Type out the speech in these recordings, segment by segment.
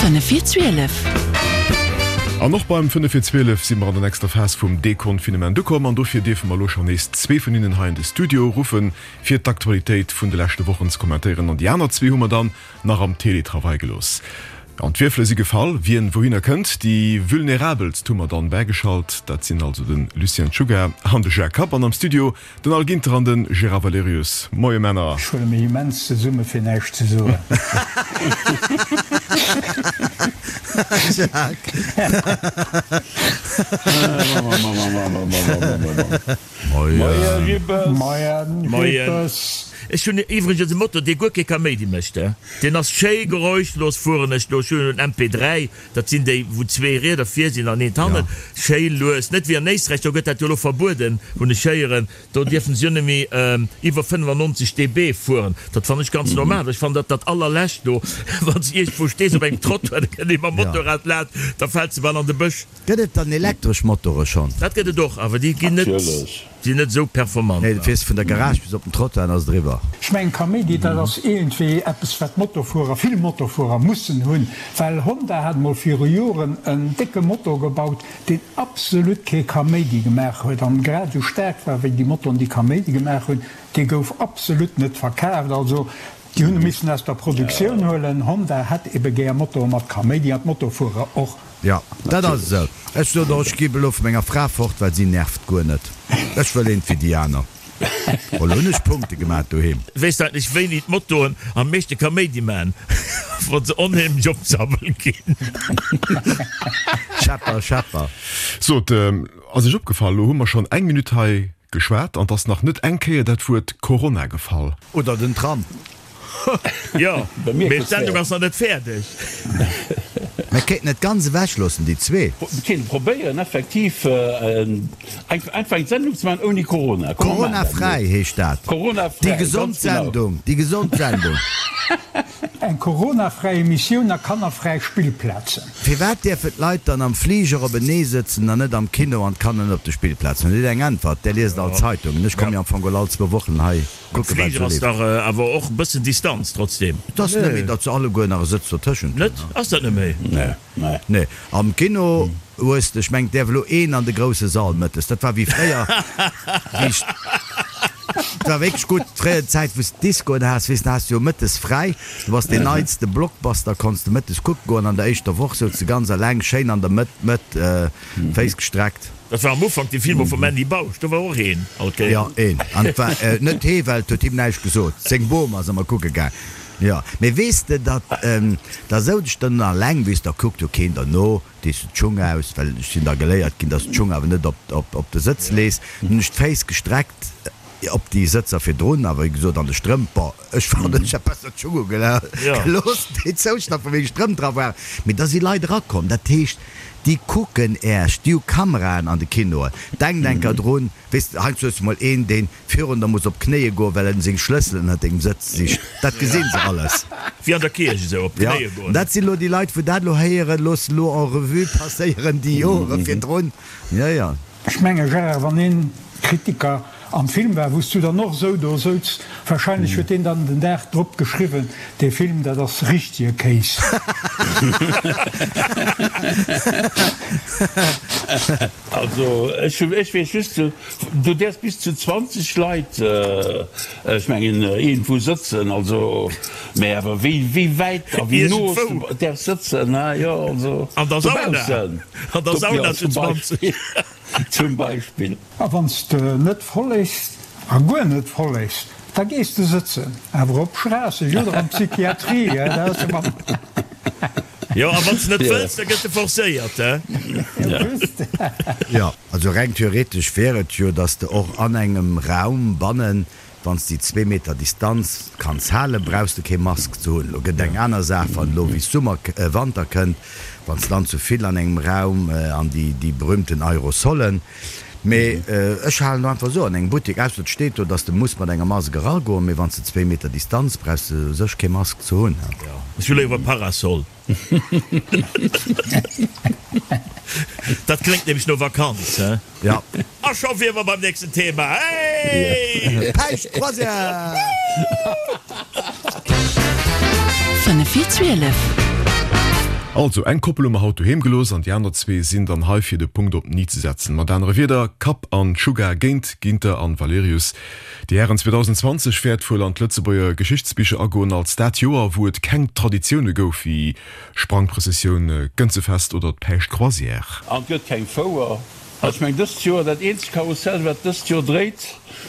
5 vir 12. An och beim 5 vir 12 si mer an der nächster Phas vum Deconfinement ukomm an dofir dierfe mer elo schonn nees zwee vun hinnen hei an de Studio ruffen, fir d'Aktualitéit vun de leschte Wochen ze kommentéieren. An déi aner zwee hu mer dann nach am Teletravail gelooss. An d'Wierfele si gefall, wien wouhinner kënnt. Déi Vulnerabelst hu mer dann bäigeschalt, dat sinn also de Lucien Czuga an de Jacques Kapp. An am Studio Den Al Ginter an den Gérard Valerius. Moie Männer. Ech huele mech immens zesumme fir näischt ze soen. Jacques. Moie Jippes. Moie Jippes. Ech hunn iwwregens e Moto, dee guer kee Kaméidi mécht. Deen ass schéi geräuschlos, fueren ech do. Ech hunn en MP3, Dat sinn déi, wou zwee Rieder vir sinn an eent hannen. Schéi lues. Net wéi an Éisträich, do gëtt dat jo elo verbueden, hunn ech héieren. Do dierfen se jo net méi iwwer 95 dB fueren. Dat fannen ech ganz normal. Ech fannen dat dat allerlescht do, wann s de iergendwou stees op engem Trottoir, da kënnt ee mam Motorrad laanscht, da fält se bal an de Bësch. Gëtt et dann elektresch Motore schonn? Dat gëtt et och, awer déi ginn net. Sinn net esou performant. Nee, du fiers vun der Garage bis op den Trottoir an ass et eriwwer. Ech mengen Kaméidi, dat ass iergendwéi eppes wat Motofuerer, vill Motofuerer mussen hunn, well Honda hat mol viru Joren en décke Motor gebaut, deen absolut kee Kaméidi gemaach huet an grad esou staark war wéi déi Motoren déi Kaméidi gemaach hunn. Dee gouf absolut net verkaaft, also déi hunn e missen aus der Produktioun huelen. Honda hätt ebe gär Motoren mat Kaméidi an d'Motofuerer och. Jo, dat ass esou. Ech sot och, ech gi elo vu menger Fra fort, well si nervt guer net. Ech wëll eent wéi déi aner. Elo hunn ech Punkte gemaat doheem. Weess de eigentlech wéini d'Motoen am meeschte Kaméidi man? Wann se onheemlech op d'Sabbel ginn. Schepper, Schepper. Sot, ass Iech opgefall, elo hu mer schonn eng Minutt hei geschwat an 't ass nach net eng Kéier dat Wuert Corona gefall. Oder den Tram. Jo, mee d'Sendung ass nach net fäerdeg. Mir kéinten et ganz ewech loossen, déi zwee. Mir kéinte probéieren effektiv einfach eng Sendung ze maachen ouni Corona. Corona-fräi heescht dat. Corona-fräi, Déi gesond ganz genau. Sendung, déi gesond Sendung. Eng Corona-fräi Emissioun a kannerfräi Spillplazen. Firwat dierfen d'Leit dann am Fliger openee sëtzen an net am Kino an d'Kanner net op de Spillplazen? Hutt Dir eng Äntwert? Där liest all d'Zeitungen. Ech komme jo am Fong geholl all zwou Wochen hei. Am Fliger ass dach awer och e bëssen Distanz trotzdem. Et ass net méi, datt se alleguer nach e Sëtz dotëschent hunn. Net? Ass dat net méi? Nee. Nee. Am Kino hues de, ech mengen, et däerf elo een an de grousse Sall mëttes. Dat war wéi fréier, wéi ech, et war wierklech gutt, fréier déi Zäit, wou s de Discoen has, weess de, has de jo mëttes fräi, du bass deen neitste Blockbuster konns de mëttes kucke goen. An der éischter Woch souz de ganz eleng schéin an der Mëtt, Mëtt, Féiss gestreckt. Dat war am Ufank déi Filmer vum Andy Bausch, do war och een all Kéier. Jo, een. An et war net hee, well et huet him näischt gesot. Seng Bom ass ëmmer kucke gaang. Jo, mee weess de, datt da souz ech dann alleng, weess, da kuckt jo keen derno, dees de d'Schung aus, well ech sinn da geléiert ginn, datt s d'Schung awer net op op de Sëtz lees. Dann hunn ech d'Féiss gestreckt op déi Sëtzer virdrun, a wéi gesot an de Strëmp, bon, ech fannen, ech hätt besser d'Schung ugelooss, déi zouschnappen, wou meng Strëmp dra waren. Mee da si Leit erakomm, dat heescht, Déi kucken Äerch, déi hu Kameraen an de Kinoen. Denkt enker drun, weess de, heiansdo hues de mol een, deen virun der muss op d'Knéie goen, well en seng Schlësselen ënnert dengem Sëtz sicht. Dat gesinn se alles. Wéi an der Kierch esou, op d'Knéie goen. Jo, dat sinn elo déi Leit, wou dat elo héieren. Looss elo en revue passéieren déi Jore virdrun. Jo, jo. Ech menge Gérard, wann een Kritiker am Film war, wou s du dann och esou do souz, wahrscheinlech huet deen dann den Dag drop geschriwwen, dee Film, dat ass richtege Kéis. Also ech weess just, du däerfs bis zu 20 Leit, ech mengen, iergendwou sëtzen, also, mä awer wéi wéi wäit a wéi no s du däerfs sëtzen, ha jo, also An der Sauna, dobaussen, an der Sauna jo, zu zum 20. Beispill. Zum Beispill. A wann s de net follegs, a guer net follegs, da gees de sëtzen, awer op Schraasseg oder an d'Psychiatrie, hè, dat ass ëmmer. Jo, a wann s de net wëlls, da gëtt de forcéiert, hè. Jo, just. Jo, also reng theoretesch wär et jo, dass de och an engem Raum bannen Wann s déi zwee Meter Distanz kanns halen, brauchs de kee Mask ze hunn. Lo gëtt eng aner Saach, wann elo wéi Summer, Wanter kënnt, wann s dann zu vill an engem Raum an déi déi berühmten Aerosolen. Mee ech halen do einfach esou an engem Buttek, ausser et steet do, dass de muss mat enger Mask eragoen, mee wann s de zwee Meter Distanz, brauchs de u sech kee Mask ze hunn. Ech hu léiwer e Parasol. Dat kléngt nämlech no Vakanz, he? Ja. A scho wier mer beim nächsten Thema, hey! Päischt Croisière! 5 vir 12. Also, eng Koppel hu mer haut doheem gelooss an déi aner zwee sinn dann hei fir de Punkt op den i ze setzen. Mat anere Wierder, Kapp an Sugar géint Ginter an Valerius. Déi Hären, 2020 wäert wuel an d'Lëtzebuerger Geschichtsbicher agoen als dat Joer, wou et keng Traditioune gouf wéi Sprangprëssessioun, Gënzefest oder d'Päischtcroisière. An et gëtt keng Fouer. Ech meng dëst Joer, dat eenzegt Karussell wat dëst Joer dréit,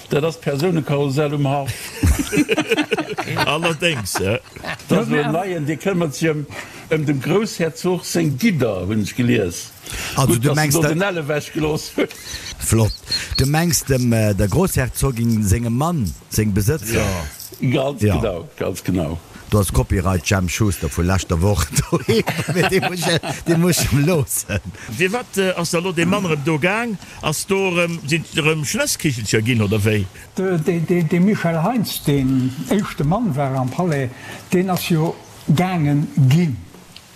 dat ass d'Persounekarussell um Haff. Allerdéngs. Dat ass elo en neien, dee këmmert sech ëm ëm dem Groussherzog seng Gidder, hunn ech gelies. Also Gutt, du datt se mengs do der. den Ell ewech gelooss hunn. Flott. Du mengs dem der Groussherzogin sengem Mann seng Besëtzer? Ganz Ja. genau, ganz genau. Do ass Copyright Jemp Schuster vu leschter Woch doheem, mee dee muss ech, dee muss ech em loossen. Firwat ass da lo dee Mann erëm do gaang? Ass do erëm, sinn et erëm Schnësskichelcher ginn oder wéi? Dee Michel Heintz, deen éischte Mann war am Palais, deen ass jo gaangen ginn.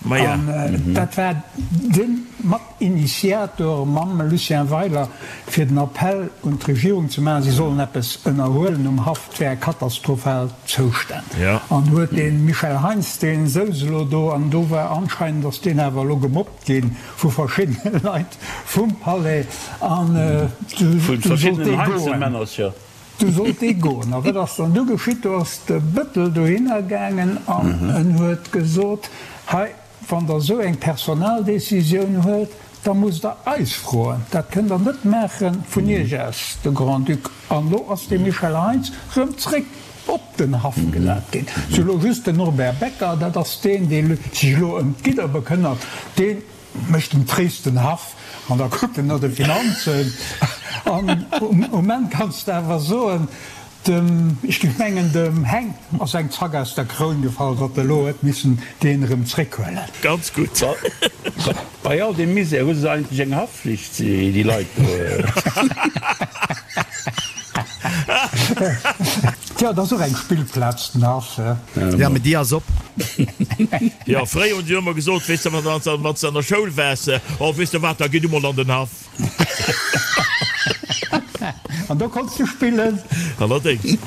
Maja. An dat war de Matinitiator mam Lucien Weiler, fir den Appell un d'Regierung ze maachen, si sollen eppes ënnerhuelen um Haff, et wäre katastrophal Zoustänn. An huet dee Michel Heintz, dee souz elo do, an do war anscheinend, ass deen awer elo gemobbt gi vu verschiddene Leit vum Palais, an du Vu sollt dee verschiddenen goen. Heinzelmännercher. Du sollt dee goen. A wat ass dann du geschitt? Do ass de Bëttel dohinner gaangen an en huet gesot, Hei, wann Der esou eng Personaldécisioun huelt, da musst Der eis froen. Dat kënnt Der net maache vun Iech aus, de Grand-Duc. An elo ass de Michel Heintz erëm zréck op den Haff gesat ginn. Sou, elo just den Norbert Becker, dat ass deen, dee sech elo ëm d'Gidder bekënnert, deen Mécht dem Tréis den Haff an da kuckt en no de Finanzen. An um Enn kanns de awer soen, dem, ech géif mengen, dem Heng ass eng Zack aus der Kroun gefall, datt e lo huet missen deen erëm zréckhuelen. Ganz gutt. Bei all deem Misär hu se eigentlech eng Haftflicht, déi Leit do. Tja, et ass och eng Spillplaz, den Haff. Jo, mee déi ass op. Jo, fréier hunn se jo ëmmer gesot, weess de, wann s de an der Schoul waars, Oh, weess de wat, da gi du mol an den Haff. An do konns du spillen. Allerdéngs.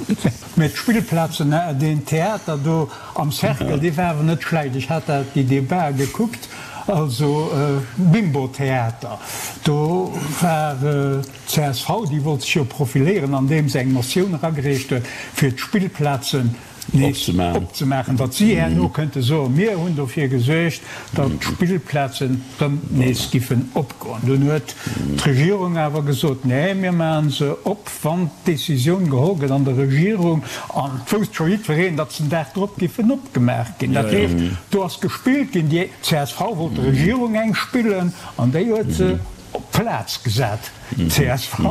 Mee d'Spillplazen, deen Theater do am Cercle, dee war awer net schlecht. Ech hat dat, déi Debatë gekuckt, also Bimbo-Theater, do war. D'CSV, déi wollt sech jo profiléieren, andeem se eng Motioun eragereecht huet, fir d'Spillplazen nees opzemaachen, datt si herno kënnte soen, mir hunn dofir gesuergt, datt d'Spillplazen rëm nees giffen opgoen. Dunn huet d'Regierung awer gesot, nee, mir maache se op, wann d'Decisioun geholl gëtt an der Regierung. An et wousst scho jiddwereen, datt se den Dag drop giffen opgemaach ginn. Dat heescht, do ass gespillt ginn. Déi csv wollt der Regierung eng spillen an déi huet se Op d'Plaz gesat, csv,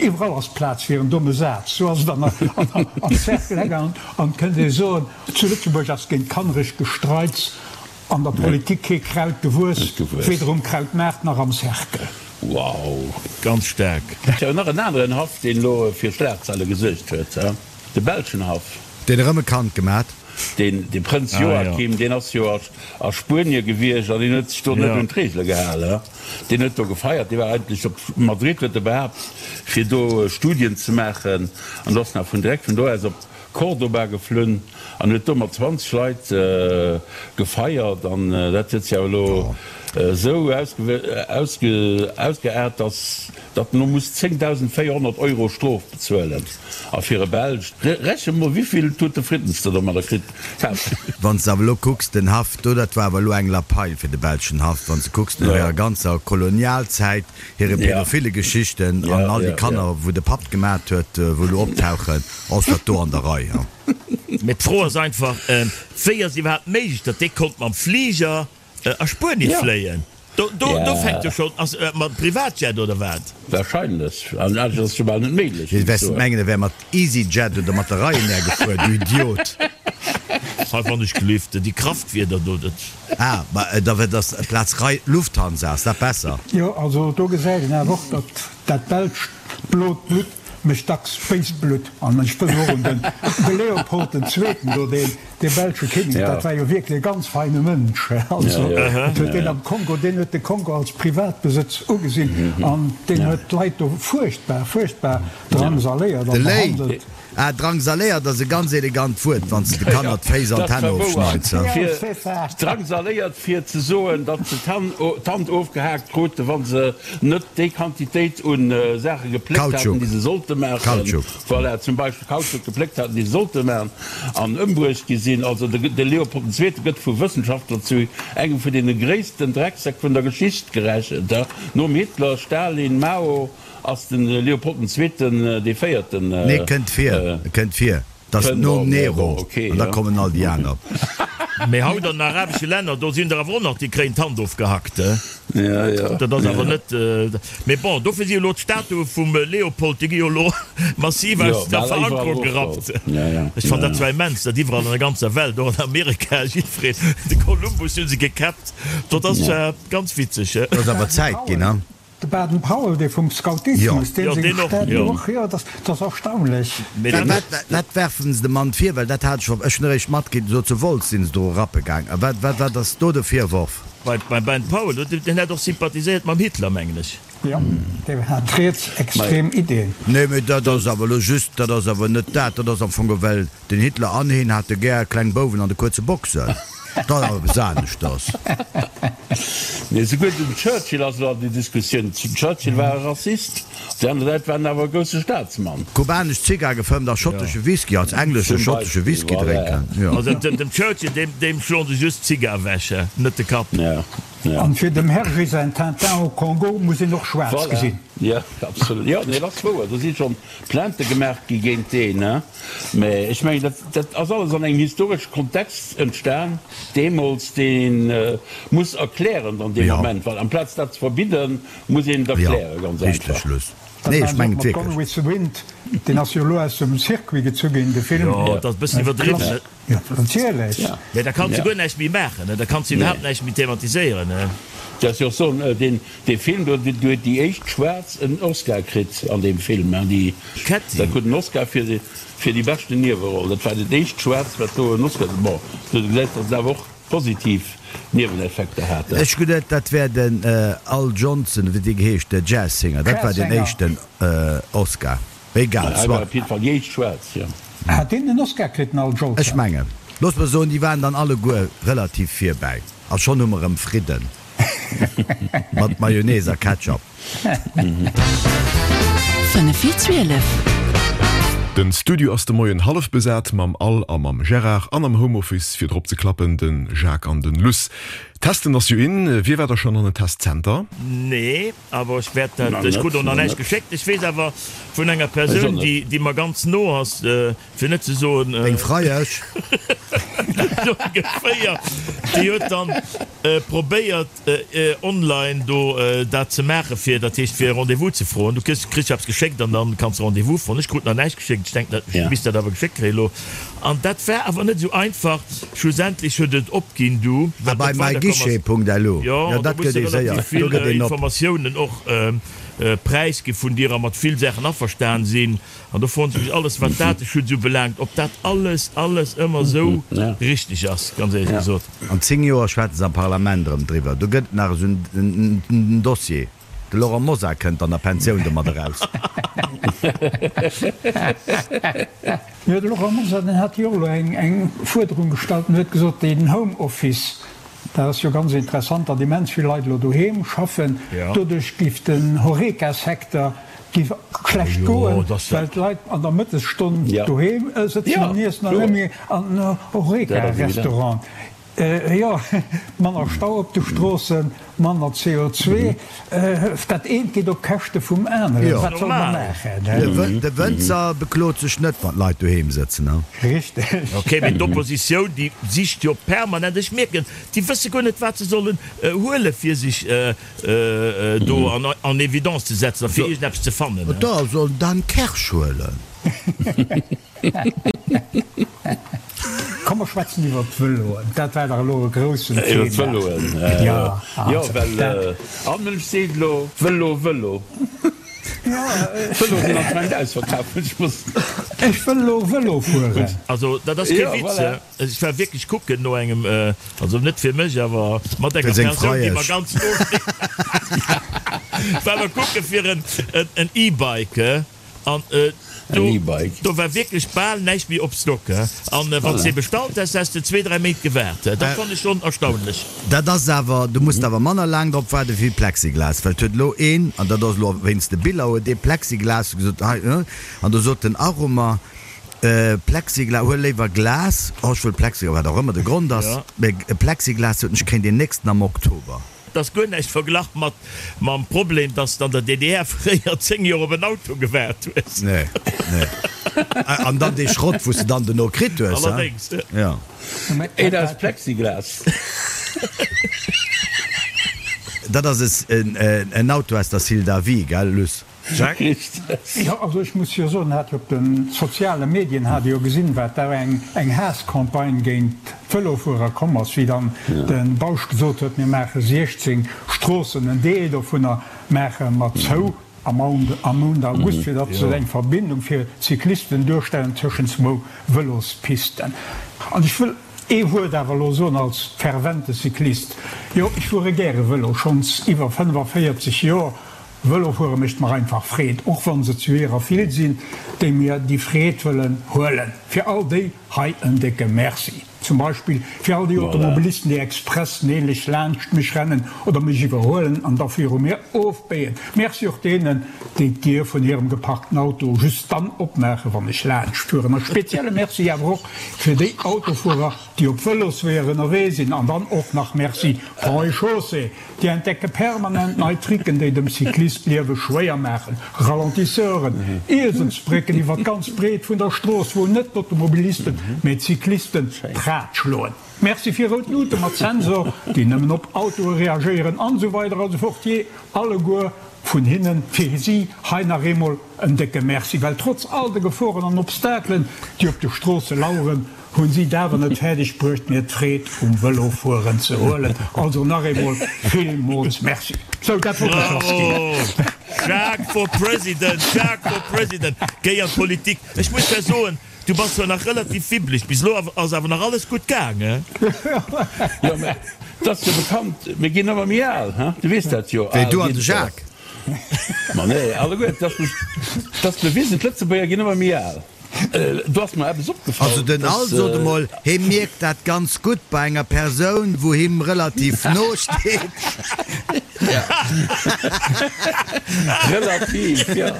iwwerall ass Plaz fir en domme Saz, sou ass et an am Cercle gaangen. An et kënnt ee soen, zu Lëtzebuerg ass géint kanneregt Gestreits an der Politik kee Kraut gewuess, weder um Krautmaart nach am Cercle. Wow! Ganz staark. Tjo, nach en aneren Haff, deen elo fir Schlagzeile gesuergt huet, de belschen Haff. Deen erëm e Kand gemat. Deen, de Prënz Joachim, deen ass jo a Spuenie gewiescht an deen huet sech do net un d'Reegele gehalen. Deen huet do gefeiert. Dee war eigentlech op Madrid, huet e behaapt, fir do Studien ze maachen. An ass nach vun direkt vun do aus op Cordoba geflunn an huet do mat 20 Leit gefeiert. An dat huet sech awer elo esou ausgeaart, datt datt en elo muss 10.400 Euro Strof bezuelen. A fir e Belsch, reche mol wivill Tute Fritten s de domadder kritt häss. Wann s de awer elo kucks, den Haff do, dat war awer elo eng Lappail fir de belschen Haff. Wann s de kucks, no hirer ganzer Kolonialzäit, hire pädophile Geschichten an all déi Kanner, wou de Papp gemat huet, wou elo optauchen, ass dat do an der Rei. Mee d'Fro ass einfach, wéi ass iwwerhaapt méiglech, datt dee konnt mam Fliger A Spuenie fléien? Do, do, do fänkt jo schonn, ass mat Privatjet oder wat? Wahrscheinlech, an anescht ass et jo bal net méiglech, Wéi wäers de mengen, e wär mat EasyJet oder mat der Ryanair gefuer, du Idiot? Hei wann ech gelift, déi Kraftwieder do, dat. Ah, ma da wär dass Plaz Ry Lufthansa, ass dat besser? Jo, also do gesäit een awer och, datt dat belscht blot Blutt mécht dacks béist Blutt. An ech wëll och un den de Leopold den Zweeten do, deen dee belsche Kinnek, dat war jo wierklech e ganz feine Mënsch. Also et huet deen am Kongo, deen huet de Kongo als Privatbesëtz ugesinn an deen huet d'Leit do fuerchtbar, fuerchtbar drangsaléiert a De Léi! behandelt. Ah, drangsaléiert ass e ganz elegant Wuert, wann s de de Kanner d'Féiss an d'Hänn ofschneits. Drangsaléiert fir ze soen, datt se d'Hand ofgehaakt kruten, wa se net déi Quantitéit u Saache gepléckt haten, déi se sollte maachen. Voilà, zum Beispill Kautschuk gepléckt haten, déi se sollte maachen, an ëmbruecht gi sinn. Also de Leopold den Zweete gëtt vu Wëssenschaftler zu engem vun deene gréissten Drecksäck vun der Geschicht gerechent, nom Hitler, Stalin, Mao. Ass den Leopold den Zweeten dee Véierten? Nee, kënnt vir, kënnt vir. Dat ass nom Nero, an da kommen all déi aner. Mee haut an den arabesche Länner, do sinn der awer och nach, déi kréien d'Hand ofgehackt. Dat ass awer net. Mee bon, dofir si jo elo d'Statue vum Leopold, déi gi jo elo massiv aus der Verankerung gerappt. Ech fannen dat zwar immens, datt iwwerall an der ganzer Welt, och an Amerika, jiddwereen, de Kolumbus hu se gekäppt. Dat ass zwar ganz witzeg. Et ass awer Zäit ginn, ha? De Baden Powell, dee vum Scoutismus, deen seng Stätt och, jo, dat ass erstaunlech. Wat werfen se dem Mann vir? Well dat hat ech, ech hunn eréischt matkritt, esou zu Wolz sinn se do rappe gaang. A wat, wat, wat ass do de Virworf? Beim Baden Powell, deen hat och sympathiséiert mam Hitler, mengen ech. Jo, deen hat rietsextrem Ideen. Nee, mee dat ass awer elo just, dat ass awer net dat, dat ass am Fong ewell Den Hitler an heen hate gär kleng Bouwen an de kuerze Boxen. Dat ass awer eppes aneschters. Nee, souguer den Churchill ass elo an déi Diskussioun. Den Churchill war e Rassist, op der aner Säit war en awer e grousse Staatsmann. Kubanesch Zigar gefëmmt a schottesche Whisky, als englesche schottesche Whisky drénken, jo. Also dem Churchill, deem schloen se just d'Zigar ewech, net de Kapp. An fir dem Hergé säin Tintin au Congo muss een och schwaarz gesinn. Voilà, jo, absolut. Jo, nee, dat ass wouer. Do si schonn Plainte gemaach gi géint deen, mä ech mengen, dat, dat ass alles an engem historesche Kontext entstan deemools, deen ee muss erklären dann dee Moment, well amplaz dat ze verbidden, muss een et erklären, ganz einfach. Dat war mat Gone with the Wind, deen ass jo elo aus dem Circuit gezu ginn, de Film. Jo, dat ass e bëssen iwwerdriwwen. Jo, natierlech. Mä da kanns de guer näischt méi maachen, da kanns de iwwerhaapt näischt méi thematiséieren. Dat ass jo och soen, deen, dee Film do, do huet déi éischt Schwaarz en Oscar kritt an deem Film, hein, déi, Kätti. dat krut en Oscar fir, fir déi beschten Nieweroll. Dat war dat éischt Schwaarz, wat do en Oscar, bon, du gesäis, datt et awer och positiv Nieweneffekter hat. Ech geduet, dat wär den Al Johnson, wéi dee geheescht, de Jazzsinger, dat war deen éischten Oscar. Egal, Hei war op jidde Fall déi éischt schwaarz, jo. Hat deen en Oscar kritt, den Al Jolson? Ech mengen, looss mer soen, déi waren dann alleguer relativ virbäi. A schonn hu mer erëm Fridden. Mat Mayonnaise a Ketchup. 5 vir 12. Den Studio ass de Moien hallef besat mam Al a mam Gérard an am Homeoffice fir drop ze klappen den Jacques an den Luss. Testen ass jo in. Wie war da schonn an en Testzenter? Nee. Awer ech wäert dat, ech krut och nach näischt geschéckt. Ech weess awer vun enger Persoun, déi, déi mer ganz no ass, fir net ze soen. Deng Freiesch? Sou ongeféier. Déi huet dann probéiert, online do dat ze maachen, fir, dat heescht, fir e Rendez-vous ze froen. Du kriss, kriss jo eppes geschéckt an dann kanns de Rendez-vous froen. Ech krut nach näischt geschéckt. Ech denken, ech misst dat awer geschéckt kréien elo. An dat war awer net esou einfach. Schlussendlech huet et opginn du, Ah, well bei et weiderkomm ass. myguichet.lu, Jo, jo, an do dat muss gëtt de ee séier, relativ do vill gëtt een op. Informatiounen och präisgi vun dir a mat vill Saachen averstan sinn. An do froen se mech alles, wat Dateschutz ubelaangt, ob dat alles, alles ëmmer esou richteg ass, ganz éierlech gesot. An 10 Joer schwätze se am Parlament erëm driwwer. Do gëtt et nach esou en Dossier. De Laurent Mosar kënnt an der Pensioun domat eraus. Jo, de Laurent Mosar, deen hat jo och elo eng Fuerderung gestallt en huet gesot, deen Homeoffice, dat ass jo ganz interessant, datt immens vill Leit elo doheem schaffen, doduerch géif den Horeca-Secteur géif schlecht goen, well d'Leit an der Mëttesstonn doheem sëtzen an iessen an net méi an den Horeca-Restaurant. Jo, manner Stau op de Stroossen, manner CO2, dat eent geet op Käschte vum aneren. Wat soll mer maachen? De Wënzer beklot sech net, wann d'Leit doheem sëtzen. Richteg. Ok, mee d'Oppositioun, déi sicht jo permanent, ech mierken, déi wësse guer net, wat se sollen huele fir sech do en évidence ze setzen a fir iergendeppes ze fannen. Da soll en Dan Kersch huelen. Komm mer schwätzen iwwer d'Vëloen, dat war dach elo e groussen Thema. Iwwer d'Vëloen, jo, jo, well all Mënsch seet elo Vëlo, Vëlo. D'Vëloe sinn anscheinend ausverkaf, ech muss. Ech wëll elo Vëlo fueren. Also dat ass kee Witz, ech war wierklech kucken no engem, also net fir mech, awer mat enger Persoun, déi mer ganz no steet, war mer kucke fir en E-Bike. An. En E-Bike. Do war wierklech bal näischt méi op Stock. An wann s de ee bestallt häss, häss de zwee, dräi Méint gewaart. Dat fannt ech schonn erstaunlech. Dat ass awer, du muss awer manner laang drop waarde wéi Plexiglas, well et huet elo een, an dat ass elo wéinst de Biller, huet ee Plexiglas gesot, hei, an do sot den Arumer, Plexiglas, huel léiwer Glas, oh ech wëll Plexiglas, wat och ëmmer de Grond ass, mä Plexiglas sot en, ech kréien deen nächsten am Oktober. Et ass guer näischt verglach mat mam Problem, dass de an der DDR fréier 10 Joer op en Auto gewaart hues. Nee, nee. An dann dee Schrott, wou s de dann dono kritt hues, hein? Allerdéngs. Jo. Een aus Plexiglas. Dat ass en Auto aus der Syldavie, gell, Luss? Jacques? Richtig. Jo, also ech muss jo soen, hat jo op de soziale Medien hat ee jo gesinn, wat da eng eng Haasscampagne géint d'Vëlofuerer komm ass, wéi dann de Bausch gesot huet, mir maache 16 Stroossen, en Deel dovunner maache mer zou am am Mount August, fir datt se eng Verbindung fir d'Cyclisten duerstellen tëschent zwou Vëlospisten. An ech wëll ee Wuert awer elo soen als fervente Cyclist, Jo, ech fuere gäre Vëlo, schonns iwwer 45 Joer, Vëlo fuere mécht mer einfach Freed, och wann se zu hirer vill sinn, déi mir déi Freed wëllen huelen. Fir all déi hei en décke Merci. Zum Beispill fir all déi Automobilisten, déi express neelech laanscht mech rennen oder mech iwwerhuelen an da viru mir ofbéien. Merci och deenen, déi d'Dier vun hirem geparkten Auto just dann opmaachen, wann ech laanscht fueren. A spezielle Merci awer och fir déi Autofuerer, déi op Vëlosweeër ënnerwee sinn. An dann och nach Merci Ponts et Chaussées, Déi entdecke permanent nei Tricken, déi dem Cyclist d'Liewe schwéier maachen, Ralentisseuren, Ieselsbrécken iwwer d'ganz Breet vun der Strooss, wou net d'Automobilisten, mee d'Cyclisten d'Rad schloen. Merci fir rout Luute mat Sensor, déi nëmmen op Autoe reagéieren, an esou weider a sou fort. Jee, alleguer vun hinnen, fir si hei nach eemol en décke Merci, well trotz all de Geforen an Obstakelen, déi op de Stroosse laueren, Hunn si et awer net fäerdeg bruecht mir d'Freed um Vëlofueren ze huelen. Also nach eemol villmools Merci. Sou, dat wollt ech lass ginn. Bravo! Jacques for President! Jacques for President! Géi an d'Politik! Ech muss der soen, du bass zwar nach relativ wibbleg, bis elo ass awer nach alles gutt gaangen. Jo, mä et ass jo bekannt, mir ginn ëmmer méi al, he? Du weess dat jo. Wéi, du an de Jacques? Ma nee, alleguer, et ass bewisen, d'Lëtzebuerger ginn ëmmer méi al. Do ass mer eppes opgefall. Also den Al sot emol, hee mierkt dat ganz gutt bei enger Persoun wou him relativ no steet. Relativ, jo.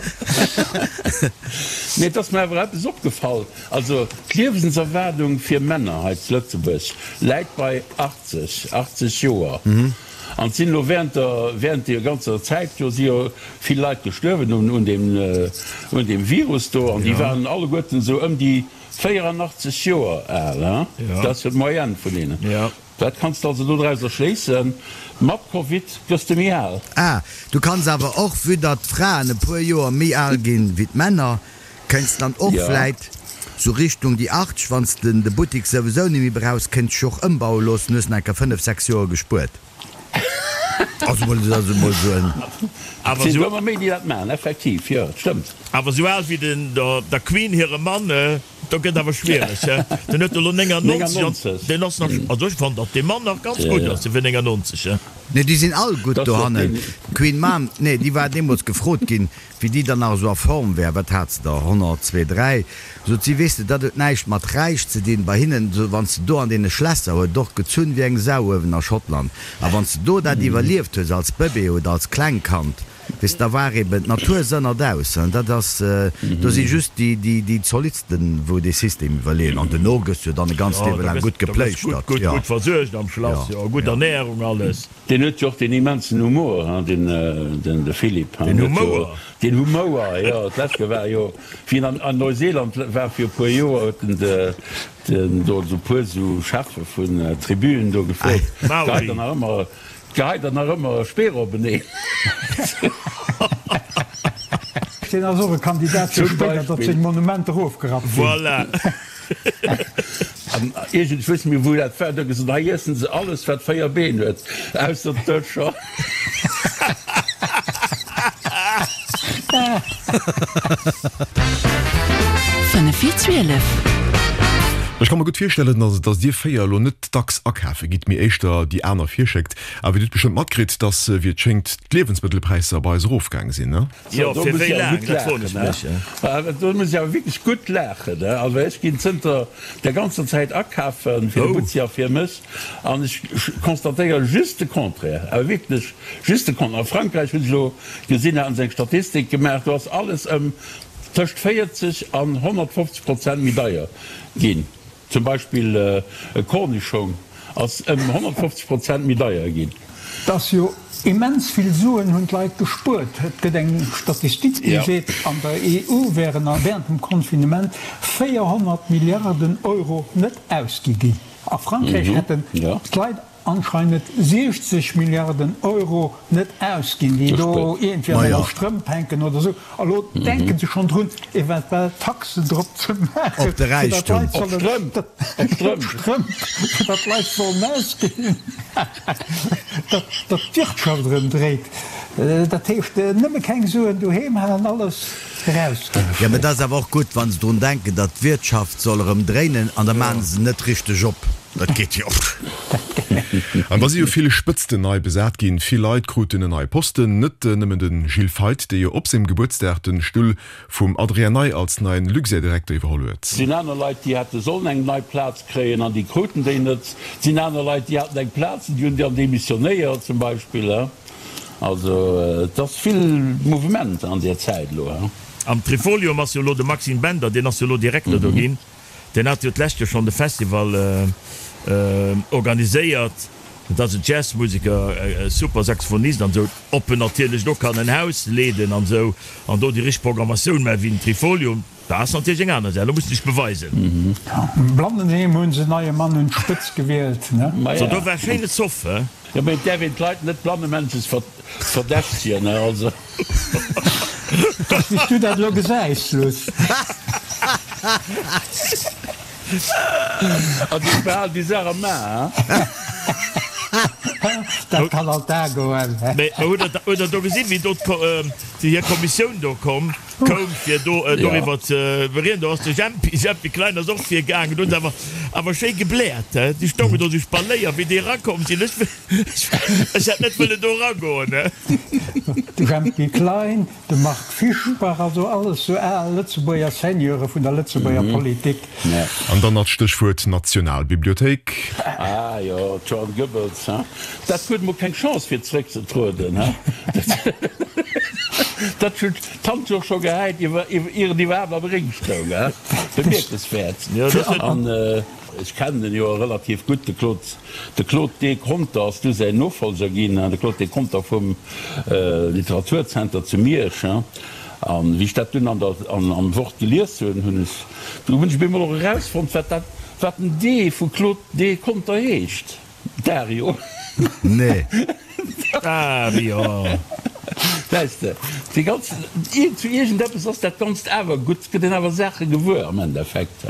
Mee et ass mer awer eppes opgefall, also d'Liewenserwaardung fir Männer hei zu Lëtzebuerg läit bei 80, 80 Joer. An et sinn elo während der, während deer ganzer Zäit do si jo vill Leit gestuerwen un, un deem, un deem Virus do. An déi waren alleguerten esou ëm déi 84 Joer al, hein. Dat ass jo d'Moyenne vun deenen. Wat kanns de also dodrauser schléissen? Mat Covid gëss de méi al. Ah, du kanns awer och, vue datt d'Fraen e puer Joer méi al ginn wéi d'Männer, Kéints dann och vläit sou Richtung déi 80, wanns de de Buttik souwisou nemmi brauchs, kéints dech och ëmbaue loossen, hues nach enker 5, 6 Joer gespuert. Also mol, also mol sou en. Awer sinn ëmmer méi déi dat maachen, effektiv, jo, et stëmmt. Awer sou al wéi den der Queen hire Mann, do gëtt awer schwiereg, he? Den huet elo 99 an deen ass nach, also ech fannen datt dee Mann nach ganz gutt ass fir 99, he? Nee, déi sinn all gutt dohannen. D'Queen Mom, nee, déi war deemools gefrot ginn, Wéi déi dann nach esou a Form wär, wat hat se der, 100, zwee, dräi, sot si, weess de, dat huet näischt mat räich ze dinn, bei hinnen, esou wann s de do an deene Schlässer, huet och gezunn wéi eng Sau uewen a Schottland, a wann s de do dat iwwerlieft hues als Bëbee oder als Klengkand, weess de, da war eben d'Natur sënnert aus, hein, dat ass, do si just déi, déi, déi Zolittsten, wou dee System iwwerleeën, an duerno gëss du jo dann e ganzt Jo, Liewe da laang gëss, gutt da gëss gutt, gepléischtert, gutt, jo. gutt versuergt am Schlass, Jo, jo, gutt jo. Ernährung, alles. Deen huet jo och deen immensen Humor, hein, den, den, de Philippe, hein. Den Huet jo Humouer. deen Humouer, jo. D'lescht Kéier war jo, wéi en an, an Neuseeland war fir e puer Joer, huet en de, den do esou puer esou Cheffe vun Tribüen do gefrot, Geheit Maori. der nach ëmmer, geheit der nach ëmmer Speer openeen? Deen ass och e Kandidat fir Zum spéider, datt Beispill. seng Monumenter ofgerappt ginn. Voilà. An iergend, ech weess net méi wou dat war, do gesot, hei iessen se alles wat 4 Been huet, ausser d'Dëscher. Fënnef vir 12. Ech ka mer gutt virstellen, dass dir 4 elo net dacks akafe gitt, mee éischter déi aner virschéckt. Awer dir hutt bestëmmt matkritt, dass, wéi et schéngt, d'Liewensmëttelpräisser bei eis erofgaang sinn, ne? Jo, Do fir muss wéi ech awer laang, gutt dat froen laachen, ech mech. he? Do muss ech awer wierklech gutt laachen, he? Also ech ginn zënter der ganzer Zäit akafen, fir de Oh. Butzi a fir mech, an ech constatéiere just de Contraire, awer wierklech just de Contraire. A Frankräich hunn ech elo gesinn, haten se eng Statistik gemaach, do ass alles ëm tëscht 40 an 150 Prozent méi deier ginn. Zum Beispill e Kornischong ass ëm 150 Prozent méi deier ginn. Et ass jo immens vill Suen hunn d'Leit gespuert. Et gëtt eng Statistik, déi seet, an der EU wären während dem Confinement 400 Milliarden Euro net ausgi ginn. A Frankräich hätten d'Leit anscheinend 60 Milliarden Euro net ausginn, déi do iergendwéi an enger Strëmp hänken oder esou. A lo denke se schonn drun, eventuell Taxen drop ze maachen, Op de fir datt Räichtum. d'Leit sollen, op d'Strëmp, fir datt d'Leit sollen ausginn, datt d'Wirtschaft erëm dréit. Dat heescht, nëmme keng Suen doheem halen, alles erausginn. Jo, mä et ass awer och gutt, wa se drun denken, datt d'Wirtschaft soll erëm dréinen, an da maache se net richteg op. Dat geet jo. An da si jo vill Spëtzten nei besat ginn. Vill Leit kruten en neie Posten. Net nëmmen de Gilles Feith, dee jo op sengem Gebuertsdag de Stull vum Adrien Ney als neien Luxair-Direkter iwwerholl huet. Et sinn aner Leit, déi hätte sollen eng nei Plaz kréien an déi kruten déi net. Et sinn aner Leit, déi haten eng Plaz an déi hunn dann demissionéiert zum Beispill. Also et ass vill Mouvement an där Zäit elo. Am Trifolium ass jo elo de Maxime Bender, deen ass jo elo Direkter do ginn. Deen hat jo d'lescht Joer schonn de Festival organiséiert. Dat ass en Jazzmuseker, e super Saxophonist an esou. Ob en natierlech do kann en Haus leeden an esou an do déi richteg Programmatioun maachen wéi den Trifolium, dat ass natierlech eng aner Saach. Lo muss en sech beweisen. Am Blandenheem hunn se en neie Mann un d'Spëtz gewielt, ne? So, do war schéine Zoff, he? Jo, mee et däerf een d'Leit net blannemännches verdächtegen, he? Also. Dass wéi s du dat elo gesäis, Luss. Also ech behalen déi Saach am A, he? Dat kann all Dag goen, he? Mee hutt der do gesinn, wéi do déi hir Kommissioun do komm koum fir do doriwwer ze berieden? Do ass de Jempi, Jempi Klein ass och virgaangen, do hunn se awer awer schéi gebläert, he? Déi stoungen do sou Spaléier, wéi déi erakomm sinn. Ech Ech hätt net wëllen do eragoen, ne? De Jempy Klein, de Marc Fischbach, also alles sou al Lëtzebuerger Seigneure vun der Lëtzebuerger Politik. An dann nach d'Stéchwuert Nationalbibliothéik. Ah jo, d'Joan Goebbels, hein? Dat huet mol keng Chance fir zeréckzetrueden, hein? Dat huet d'Hand jo scho gehäit, ier et iwwerhaapt am Ring stoung, hein? Bemierkenswäert. An ech kennen en jo relativ gutt, de Claude. De Claude D. Conter ass du säin Nofolger ginn, de Claude D. Conter vum Literaturzenter zu Miersch. An wéi ech dat dunn an der, am Wort gelies hunn, hunn ech, du hunn ech op eemol och erausfonnt, wat dat, wat den D vu Claude D. Conter heescht, Dario. Nee. Dario. Weess de, déi ganz, zu iergendeppes ass dat Ganzt awer gutt, gëtt een awer Saache gewuer am Endeffekt.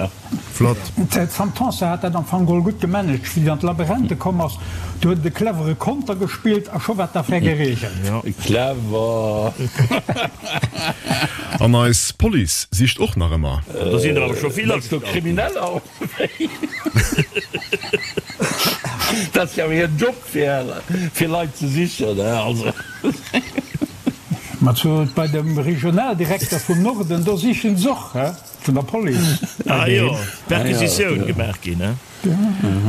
Flott. D'Sam Tanson hat dat am Fong geholl gutt gemanagt. Wéi se an d'Labyrinthe komm ass, do huet et e clevere Konter gespillt a scho war d'Affär geregelt. Clever. An eis Police sicht och nach ëmmer. Do sinn der awer scho vill Mengst du agestallt ginn. Krimineller oder wéi? Dat ass jo awer hiren Job fir Leit ze sichen, also. Ma zu bei dem Regionaldirekter vum Norden, do sichen se och, he? Vun der Police. Ah jo, Perquisitioun gemaach ginn, he?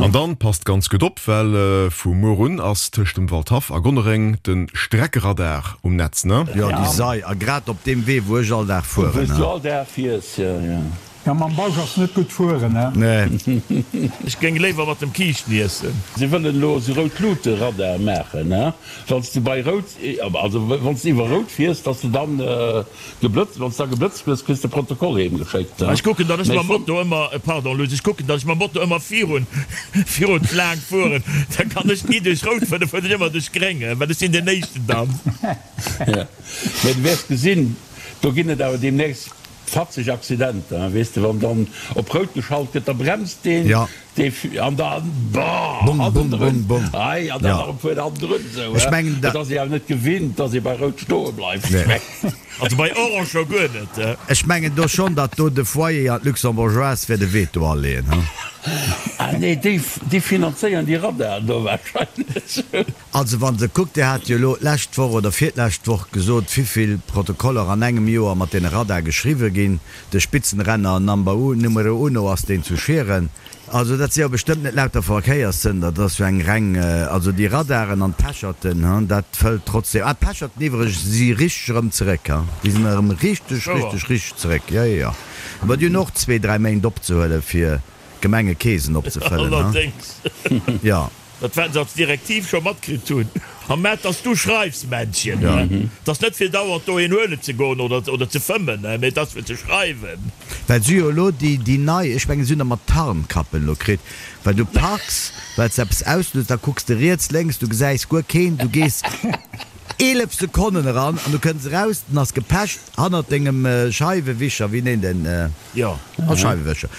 An dann passt ganz gutt op, well vu muer un ass tëscht dem Waldhaff a Gonnereng de Streckeradar um Netz, ne? Jo, déi Sei, a grad op deem Wee wou ech all Dag fueren, Wou s du he? all Dag fiers, jo, jo. Jo, mam Bausch ass net gutt fueren, he? Nee. Ech géing léiwer mat dem Kiischten iessen. Se wëllen elo esou Rout-Luute-Radar maachen, he? Wann s de bei Rout, also wann s de iwwer Rout fiers, dass de dann Geblëtzt, wann s da geblëtzt gëss, kriss de Protokoll heem geschéckt. Ech kucken, datt ech mam Moto ëmmer, pardon Luss, ech kucken, datt ech mam Moto ëmmer virun, virun d'Laang fueren, da kann ech ni duerch rout fueren, da fueren ech ëmmer duerch gréng, well ech sinn deen éischten dann. Jo, mä du wäers gesinn, do ginn et awer deemnächst. Fatzeg Accidenter, weess de, wann dann op rout geschalt gëtt, da bremst deen, dee an da bah Bum, bum, bum, bum. Hei an dann nach e puer hannendrun esou, Ech mengen, dat ass ee awer net gewinnt, dass ee bei rout stoe bleift. Nee. Also bei orange scho guer net. Ech mengen do schonn, datt do de Foyer an d'Luxembourgeoise wäert e Veto aleeën, he? Ah nee, déi, déi finanzéieren déi Radaren do wahrscheinlech. Also wann se kuckt, Dir hat jo elo d'lescht Woch oder virlescht Woch gesot, wivill Protokoller an engem Joer mat deene Radar geschriwwe ginn. De Spitzenrenner number u, numero uno ass deen zu Schieren. Also dat si jo bestëmmt net lauter Verkéierssënder, dat ass jo eng reng, also déi Radaren an d'Pecherten, hu, dat fëllt trotzdem. Ah, d'Pecherten iwwregens si richteg erëm zeréck, hu, déi sinn erëm richteg, richteg, richteg zeréck, jo, jo, jo. Mä déi hunn och zwee, dräi Méint opzehuelen, fir d'Gemengekeesen opzefëllen, hu. Allerdéngs. Jo. Dat wat se als Direktiv scho matkritt hunn. A mä dass du schreifs, Männchen, 't ass net fir dauernd dohin huelen ze goen oder oder ze fëmmen, mä et ass fir ze schreiwen. Well si jo elo déi déi nei, ech mengen si hunn der mat Tarnkappen elo kritt, well du parks, well s de eppes auslues, da kucks de riets, lénks, du gesäis guer keen, du gees 11 Sekonnen eran an du kënns eraus, den ass gepecht hannert dengem Scheiwewischer, wéi neen den? Jo. Als Scheiwewëscher.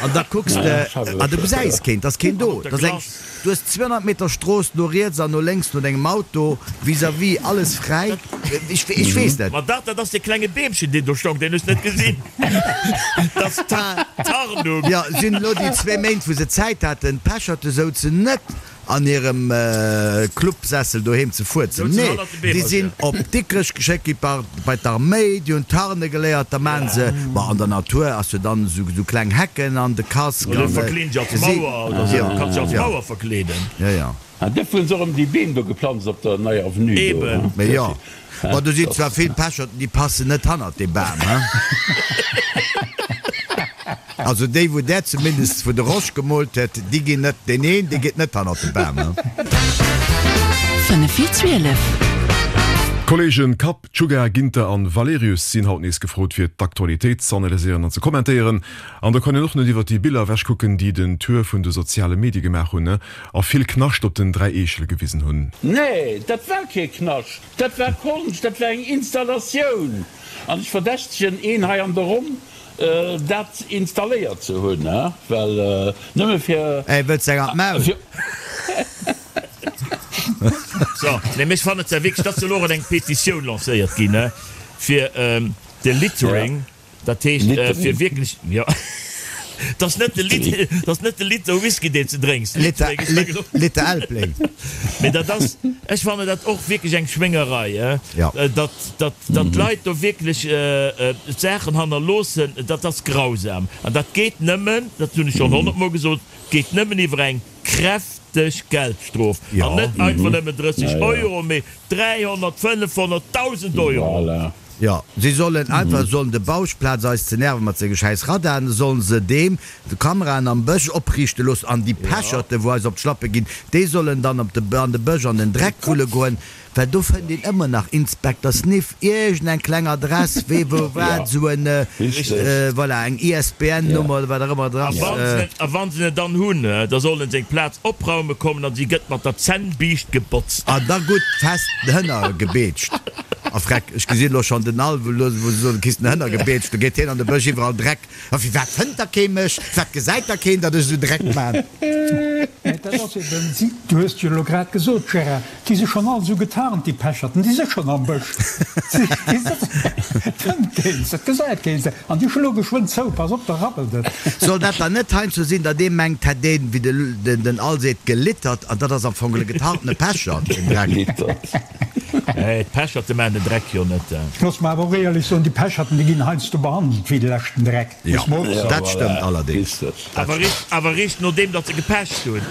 An da kucks de, a du gesäis keen, 't ass keen do. 't ass eng, du hues 200 Meter Strooss no riets an no lénks no dengem Auto, vis-à-vis alles fräi. Ech, ech weess net. Ma dat, dat ass dee klenge Beemchen, deen do stong, deen hues net gesinn. Dat ass d'Tarnung. Jo, si hunn elo déi zwee Méint, wou se Zäit haten, d'Pecherte souzen net an hirem Clubsessel doheem ze fuerzen. Nee, déi sinn op Dikrech geschéckt gi bei d'Arméi, déi hunn Tarne geléiert, da maachen se, bon, an der Natur ass jo dann esou kleng Hecken an de Casque an Verkleeden se als Mauer oder esou, kanns se als Mauer verkleeden. Jo, jo. An duerfir hunn se och ëm déi Beem do geplanzt op der neier Avenue do. Eben. Mee jo. Bon, do sinn zwar vill Pecherten, déi passen net hannert dee Bam, he? Also déi, wou där zumindest wou de Rosch gemoolt huet, déi ginn net, deen een, dee geet net hannert de Bam, he? 5 vir 12. D'Kollegen Kapp, Czuga, Ginter an Valerius sinn haut nees gefrot fir d'Aktualitéit z'analyséieren an ze kommentéieren. An da kann een och net iwwer déi Biller ewechkucken, déi den Tour vun de soziale Medie gemaach hunn a vill Knascht op den 3 Eechele gewisen hunn. Nee, dat war kee Knascht. Dat war Konscht, dat war eng Installatioun. An ech verdächtegen een hei an der Ronn, dat installéiert ze hunn, well nëmme fir. Ey, wëlls de eng an d'Maul? So, nee, mee ech fannen et ja wierklech, et ass jo elo och eng Petitioun lancéiert ginn, fir de Littering. Dat heescht, fir wierklech, jo, 't ass net de Lit, 't ass net de Liter Whisky, deen s de drénks. Liter, Liter Elbling. Mee dat ass, ech fannen dat och wierklech eng Schwéngerei, Jo. datt, datt, datt d'Leit do wierklech Saachen hannerloossen, dat ass grausam. An dat geet nëmmen, dat hunn ech schonn honnertmol gesot, geet nëmmen iwwer eng kräfteg Geldstrof. Jo. An net einfach nëmmen 30 Euro, mee 300, 500, 1.000 Euro. Voilà. Jo, si sollen einfach, sollen de Bausch, plaz eis ze nerven mat senge schäiss Radaren, sollen se deem de Kameraen am Bësch opriichte loossen an déi Pecherte wou eis op d'Schlappe ginn, déi sollen dann op de an de Bësch an den Dreck wulle goen, well do fënnt een ëmmer nach Inspekter Sniff, iergend eng kleng Adress, wee wou wat, esou en, voilà, eng ISBN Nummer oder wat och ëmmer dra ass. A wann se en dann hunn, da sollen se eng Plaz opraume kommen an si gëtt mat der Zännbiischt gebotzt. An da gutt fest den Hënner gebeetscht. A freck, ech gesinn elo schonn den Alw, elo wou se soen, du kriss den Hënner gebeetscht, do geet hien an de Bësch, iwwerall Dreck. A firwat fënnt da kee mech? Firwat gesäit da keen, datt ech esou Dreck man? Mä dat ass eben, si, du hues et jo elo grad gesot, Gérard, déi si schonn all esou getarnt, déi Pecherten, déi si schonn am Bësch. Déi sëtzen, et fënnt keen se, et gesäit keen se, an déi schloe geschwënn zou, pass op, da rabbelt et. Soll dat dann net heiansdo sinn, datt ee mengt, hätt een, wéi den Al seet, gelittert, an dat ass am Fong e getarntene Pechert, den Dreck? Gelittert. Nee, d'Pecherten maachen den Dreck jo net. Looss mer awer och éierlech soen, déi Pecherten, déi ginn heiansdo behandelt wéi de leschten Dreck, Jo, muss mer och soen. dat stëmmt allerdéngs. Awer eréischt nodeem datt se gepecht hunn.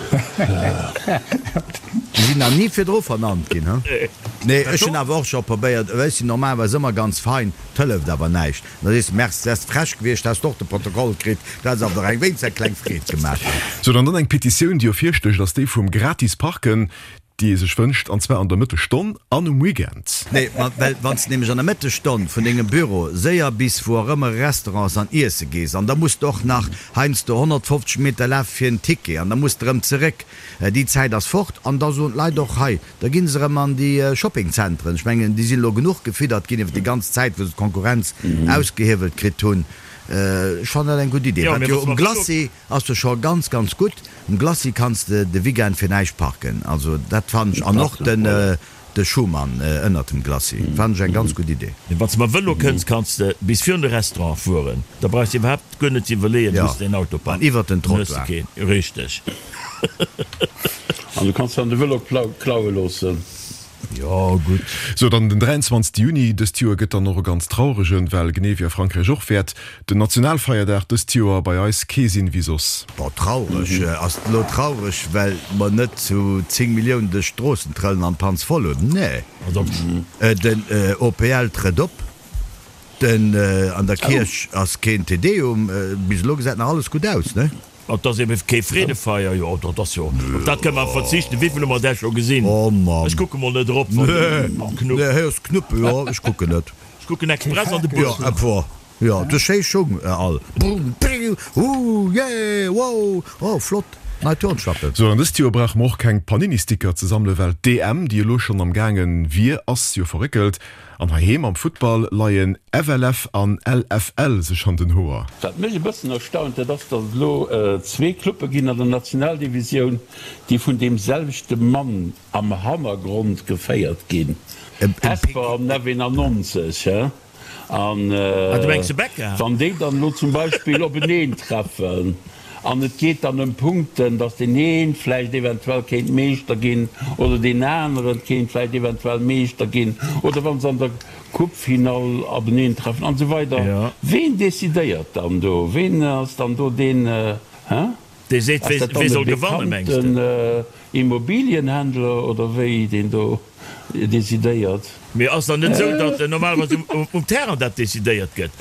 Déi sinn nach ni virdru vernannt ginn, he? Nee, ech hunn awer och scho probéiert, well ech sinn normalerweis ëmmer ganz fein, 't hëlleft awer näischt. Da sees de, Merci, häss frech gewiescht, häss de och de Protokoll kritt, du häss awer der eng wéinst eng kleng Freed gemaach. Sou, dann dann eng Petitioun, déi ervirstécht, ass déi vum gratis Parken. Déi ee sech wënscht, an zwar an der Mëttesstonn an um Weekend. Nee, ma well wann s de nämlech an der Mëttesstonn vun dengem Büro séier bis wou och ëmmer e Restaurant ass an iesse gees an da muss de och nach heiansdo 150 Meter lafe fir en Ticket an da muss de erëm zeréck, déi Zäit ass fort an da soen d'Leit och, hei, da gi se erëm an déi Shoppingzentren. Ech mengen, déi sinn elo genuch gefiddert ginn iwwer déi ganz Zäit, wou se d'Konkurrenz ausgehiewelt kritt hunn. Ech fannen dat eng gutt Idee. Wat jo um Glacis Ass jo scho ganz ganz gutt. Um Glacis kanns de de Weekend fir näischt parken, also dat fannen ech, an och den de Schuman ënnert dem Glacis fannen ech eng ganz gutt Idee. Wann s de mam Vëlo kënns, kanns de bis virun de Restaurant fueren, da brauchs de iwwerhaapt guer net ze iwwerleeën, wou s de däin Auto An parks. iwwert den Dann hues de Trottoir. keen, richteg. An du kanns dann de Vëlo klaue loossen. Jo, gutt. Sou, dann den 23 Juni dëst Joer gëtt dann och e ganz trauregen, well genee wéi a Frankräich och, wäert den Nationalfeierdag dëst Joer bei eis kee sinn wéi soss. Bon, traureg, ass et elo traureg, well mer net zu 10 Milliounen duerch d'Stroossen trëllen an d'Panz voll hunn? Nee. Den OPL trëtt op. Den, an der Kierch ass keen Te Deum. Bis elo gesäit nach alles gutt aus, ne? Et ass ebe kee Freedefeier, jo, dat ass jo, op dat kënne mer verzichten. Wéivill hu mer där scho gesinn? Oh Mann. Ech kucke mol net erop, wann Nee, Knupp. nee, hei ass Knupp, jo, ech kucken net. Ech kucken express an de Jo, Bus. epwa, jo, du schéi Schung all. Bum, piu, hu, yeah, wow, oh, flott, nei Turnschlappen. Sou, an dëst Joer brauche mer och keng Panini-Sticker ze sammelen, well d'EM, déi elo schonn am gaange wier, ass jo verréckelt. An heiheem am Futtball leien FLF an LFL sech an den Hoer. Wat mech e bëssen erstaunt, dat ass, datt et elo zwee Cluppe ginn an der Nationaldivisioun, déi vun deem selwechte Mann am Hannergrond geféiert ginn, Hesper an F91. He? An wann déi dann elo zum Beispill openeen treffen an et geet dann ëm Punkten, datt deen ee vläicht eventuell kéint Meeschter ginn oder deen anere kéint vläicht eventuell Meeschter ginn oder wa se an der Coupefinall openeen treffen an esou weider, ween decidéiert dann do? Ween ass dann do deen, hä? Dee seet, Ass dat wee dann e soll gewannen, mengs de? bekannten Immobilienhändler oder wéi, deen do decidéiert? Mee ass dann net esou, datt normalerweis um Terrain dat decidéiert gëtt?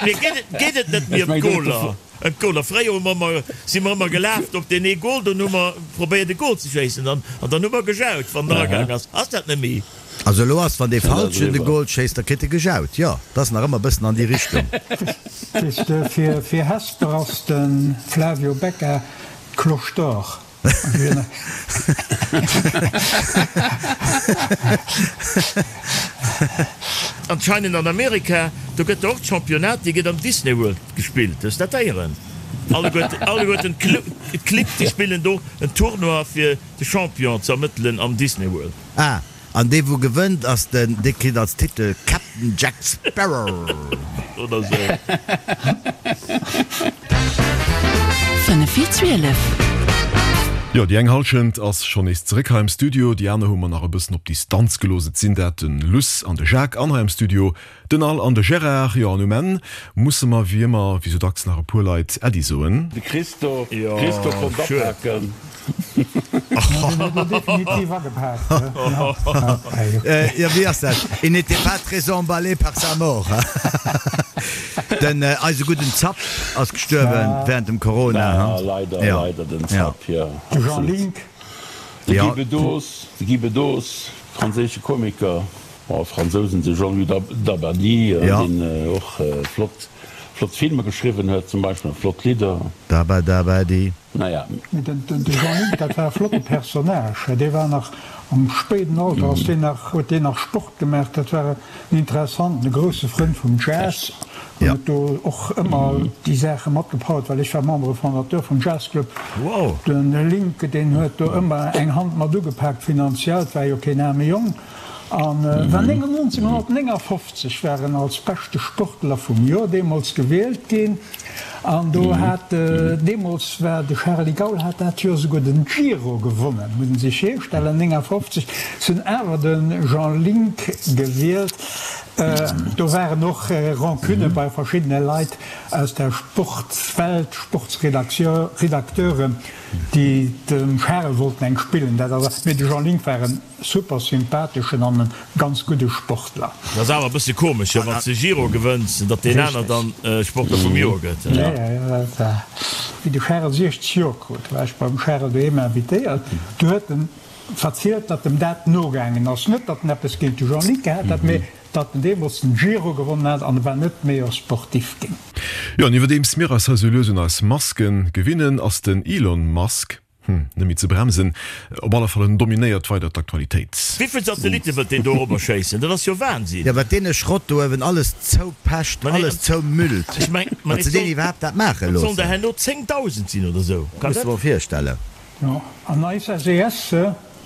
Mee geet et net méi ëm d'Goler? Ëm d'Goler? Fréier hu mer ëmmer, si mer ëmmer gelaf op deen ee Gol, dunn hu mer probéiert e Gol ze schéissen an dann hu mer gejaut, wann en eragaang ass. Ass dat net méi? Also elo ass, wann dee Falschen de Goal schéisst, da kritt e gejaut. Jo, dat ass nach ëmmer e bëssen an déi Richtung. Weess de, fir Hesper ass de Flavio Becca d'Cloche d'Or. Anscheinend an Amerika, do gëtt och d'Championnat, déi gëtt am Disney World gespillt. Hues dat héieren? Alleguerten d'Clibb, déi spillen do en Tournoi fir de Champion ze ermëttelen am Disney World. Ah, an dee wou gewënnt ass den, dee kritt als Titel Captain Jack Sparrow. Oder sou. 5 vir 12. Jo, déi eng Halschent ass schonn nees zeréck hei am Studio, déi aner hu mer nach e bëssen op Distanz gelooss. Et sinn dat den Luss an de Jacques an hei am Studio Den Al an de Gérard, jo, an um Enn musse mer wéi ëmmer, wéi sou dacks, nach e puer Leit Äddi soen. De Christo, Christo konnt apaken. Deen huet lo definitiv agepaakt. Jo, wéi ass dat? Il n'était pas très emballé par sa mort. Den eise gudden Zapp ass gestuerwen während dem Corona, Ja, leider, leider den Zapp, jo. De Jean Link. De Guy Bedos, de Guy Bedos, franséische Komiker. Oh, Fransousen, de Jean-Louis Dabadie, deen och flott, flott Filmer geschriwwen huet zum Beispill, an flott Lidder. Daba Dabadi. Naja. Mee den Jean Link, dat war e flotte Personnage. Dee war nach am spéiden Alter, ass deen nach, huet deen nach Sport gemaach. Dat war en interessanten, e grousse Frënd vum Jazz an huet do och ëmmer déi Saache matgepowert, well ech war Membre fondateur vum Jazzclub. De Link, deen huet do ëmmer eng Hand mat ugepaakt finanziell, 't war jo keen aarme Jong. An war 1959 war en als beschte Sportler vum Joer deemools gewielt ginn. An do hat deemools war de Charly Gaul hat dat Joer souguer den Giro gewonnen, muss een sech virstellen, 59. Se hunn awer de Jean Link gewielt. Do waren och Rancunne bei verschiddene Leit aus der Sportswelt, Sportsredakteuren, déi dem Charel wollten eng spillen. Dat ass, mee de Jean Link war en super sympatheschen an e ganz gudde Sportler. Dat ass awer e bësse komesch, jo, wann s de Giro gewënns, datt deen aner dann Sportler vum Joer gëtt. Jo, jo, dat war, wéi de Charel 60 Joer krut, war ech beim Charel doheem invitéiert. Du huet en verzielt, datt em dat nogaangen ass. Net, datt en eppes géint de Jean-Luc gehat hätt, mee datt en deemools den Giro gewonnen hat an e war net Meilleur Sportif ginn. Jo, an iwwerdeems mir eis hei sou lues un eis Maske gewinnen, ass den Elon Musk, hm, net méi ze bremsen. Op alle Fall, en dominéiert weider d'Aktualitéit. Wéivill Satellitte wëllt deen do erobber schéissen? Dat ass jo Wahnsinn! Jo, wat deen e Schrott do uewen alles zoupecht, alles zoumüllt, datt se deen iwwerhaapt dat maache loossen. Dat sollen der herno 10.000 sinn oder sou. Muss de mol virstellen. Jo, an eis SES,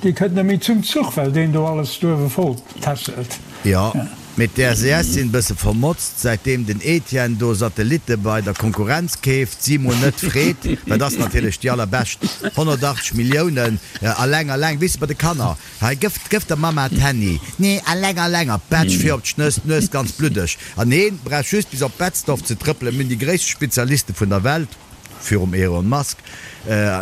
déi kënnt net méi zum Zuch, well deen do alles do uewe voll tässelt. Jo, mee d'SES sinn bësse vermotzt, säitdeem den Etienne do Satellitte bei der Konkurrenz keeft, si mol net freet, dat ass natierlech déi allerbescht, 180 Milliounen, alleng, alleng, weess de, bei de Kanner, hei gëff, gëff der Mamma d'Handy, nee, alleng, alleng, a pätsch vir op d'Schnëss, d'Nues ganz bluddeg, an heen brauch just bis op Betzdorf ze trëppelen, mir hunn déi gréisste Spezialiste vun der Welt. Virum Elon Musk,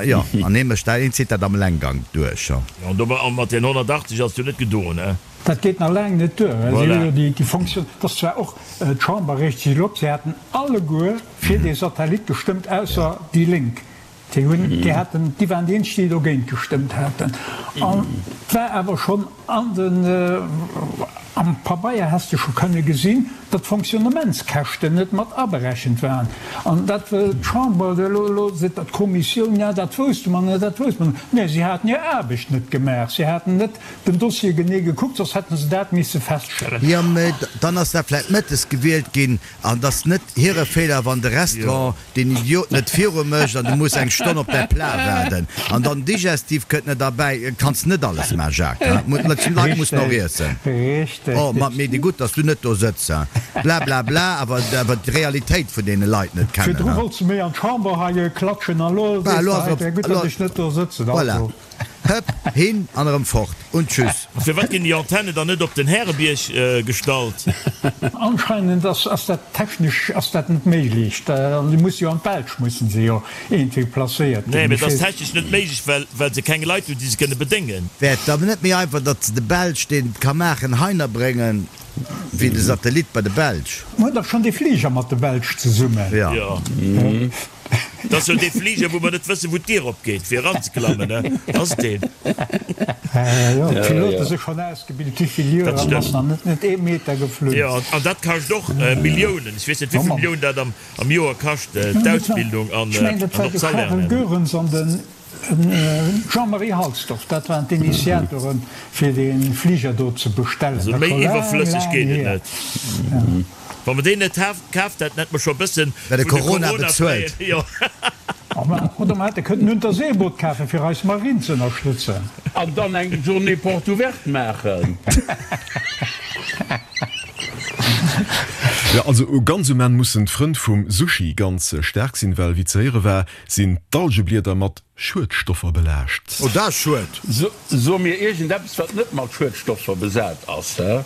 jo, an hee mécht dat, heen zitt dat am Allenggang duerch, jo. Jo, an dobäi, an mat den 180 ass et jo net gedoen, he? Dat geet nach laang net duer, well si hu jo déi, déi Fonctioun, et ass zwar och, d'Chamber reegt sech elo op, si haten alleguer fir dee Satellit gestëmmt, ausser déi Lénk, déi hunn, déi haten, déi waren déi eenzeg, déi dogéint gestëmmt haten. An et war awer schonn An den, am Pabeier häss de scho kënne gesinn, datt d'Fonctionnementskäschten net mat aberechent waren. An dat wëll d'Chamber elo, elo seet der d'Kommissioun, ja dat wousste mer net, dat wousste mer net. Nee, si haten hir Aarbecht net gemaach, si haten net den Dossier genee gekuckt, soss hätte se dat misse feststellen. Jo, mä dann ass dat vläicht mëttes gewielt ginn an et ass net hire Feeler, wann de Restaurant deen Idiot net viru mécht an du muss eng Stonn op däi Plat waarden an dann Digestif kënnt net derbäi. Kanns net alles man, Jacques, hein? D'Leit mussen och iessen. Oh, ma mee gutt, dass du net do sëtz, hein? Bla bla bla, awer awer d'Realitéit vun deene Leit net kennen, Virdru hein? wollts de méi an d'Chamber hei klatschen an elo sees de hei, wär gutt, datt ech net do sëtzen. Voilà. Also. Hëpp, hin an erëm fort und tschüss. A firwat ginn déi Antenne dann net op den Härebierg gestallt? Anscheinend ass ass dat technesch ass dat net méiglech. An déi musse jo an d'Belsch mussen se jo iergendwéi placéiert ginn. Nee, mee et ass technesch net méiglech, well well se keng Leit hunn, déi se kënne bedéngen. Wär et dann net méi einfach, datt se de Belsch, deen et ka maachen, heiner bréngen, wéi de Satellit bei de Belsch? Mer hunn dach schonn dee Fliger mat de Belsch zesummen. Jo. Dat ass jo dee Fliger, wou mer net wëssen, wou d'Dier opgeet, fir eranzeklammen, ne? Ass et deen? Jo, d'Pilote si schonn ausgebilt, wéi vill Joer, an ass nach net net ee Meter geflunn. Jo, an dat kascht och Milliounen. Ech weess net, wéi vill Milliounen dat am Joer kascht, d'Ausbildung an och d'Salairen. Ech mengen, dat war de Charel Goerens an de Jean-Marie Halsdorf, dat waren d'Initiatoren, fir dee Fliger do ze bestellen. Also méi iwwerflësseg geet et net. Wa mer deen net kaaft hätten, hätte mer scho e bëssen vun de Corona bezuelt. Oder mer hätte kënnen en Unterseeboot kafen, fir eis Marinn ze ënnerstëtzen. An dann eng Journée porte ouverte maachen. Jo, also ganz um Enn mussen d'Frënn vum Sushi ganz staark sinn, well wéi ze héiere war, sinn d'Algeblieder mat Schuedstoffer belaascht. Oh, dat ass schued. So mir iergendeppes wat net mat Schuedstoffer besat ass, hä?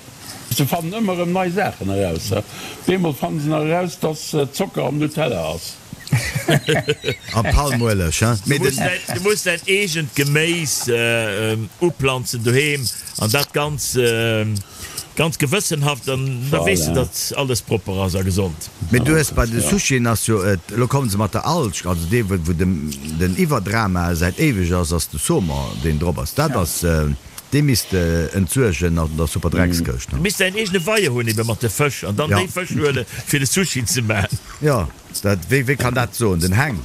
Se fannen ëmmer erëm nei Saachen eraus, hä? Bemol fannen se nach eraus, dass Zocker am Nutella ass. A Palmueleg, hä? Du muss däin, du muss däin eegent Geméis uplanzen doheem an dat ganz, ganz gewëssenhaft an da weess de, datt alles propper ass a gesond. Mee du hues bei de Sushien ass jo et, elo kommen se mat der Alg, also dee wou den den Iwwerdrama säit éiweg ass, ass de Saumon deen drop ass. Dat ass, dee misst de entsuergen an der super Dreckskëscht. Du misst däin eegene Weier hunn ebe mat de Fësch an dann déi Fësch huele fir de Sushi ze man. Jo, dat, wee wee kann dat soen? Den Heng.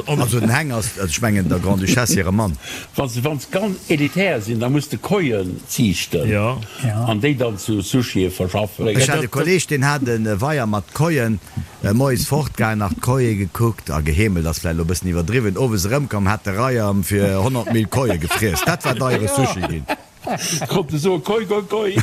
Also den Heng ass, ech mengen der Grande-Duchesse hire Mann. Wann se wann se ganz elitär sinn, da muss de Koien ziichten an déi dann zu Sushie verschaffen. Ech hat e Kolleg, deen hat e Weier mat Koien, moies fortgaangen, nach d'Koie gekuckt a geheemelt, ass vläicht elo e bëssen iwwerdriwwen, owes erëmkomm, hat de Reier fir 100 Mil Koie gefriess. Dat war deiere Sushi ginn. Konnt e soe Koi, koi, koi.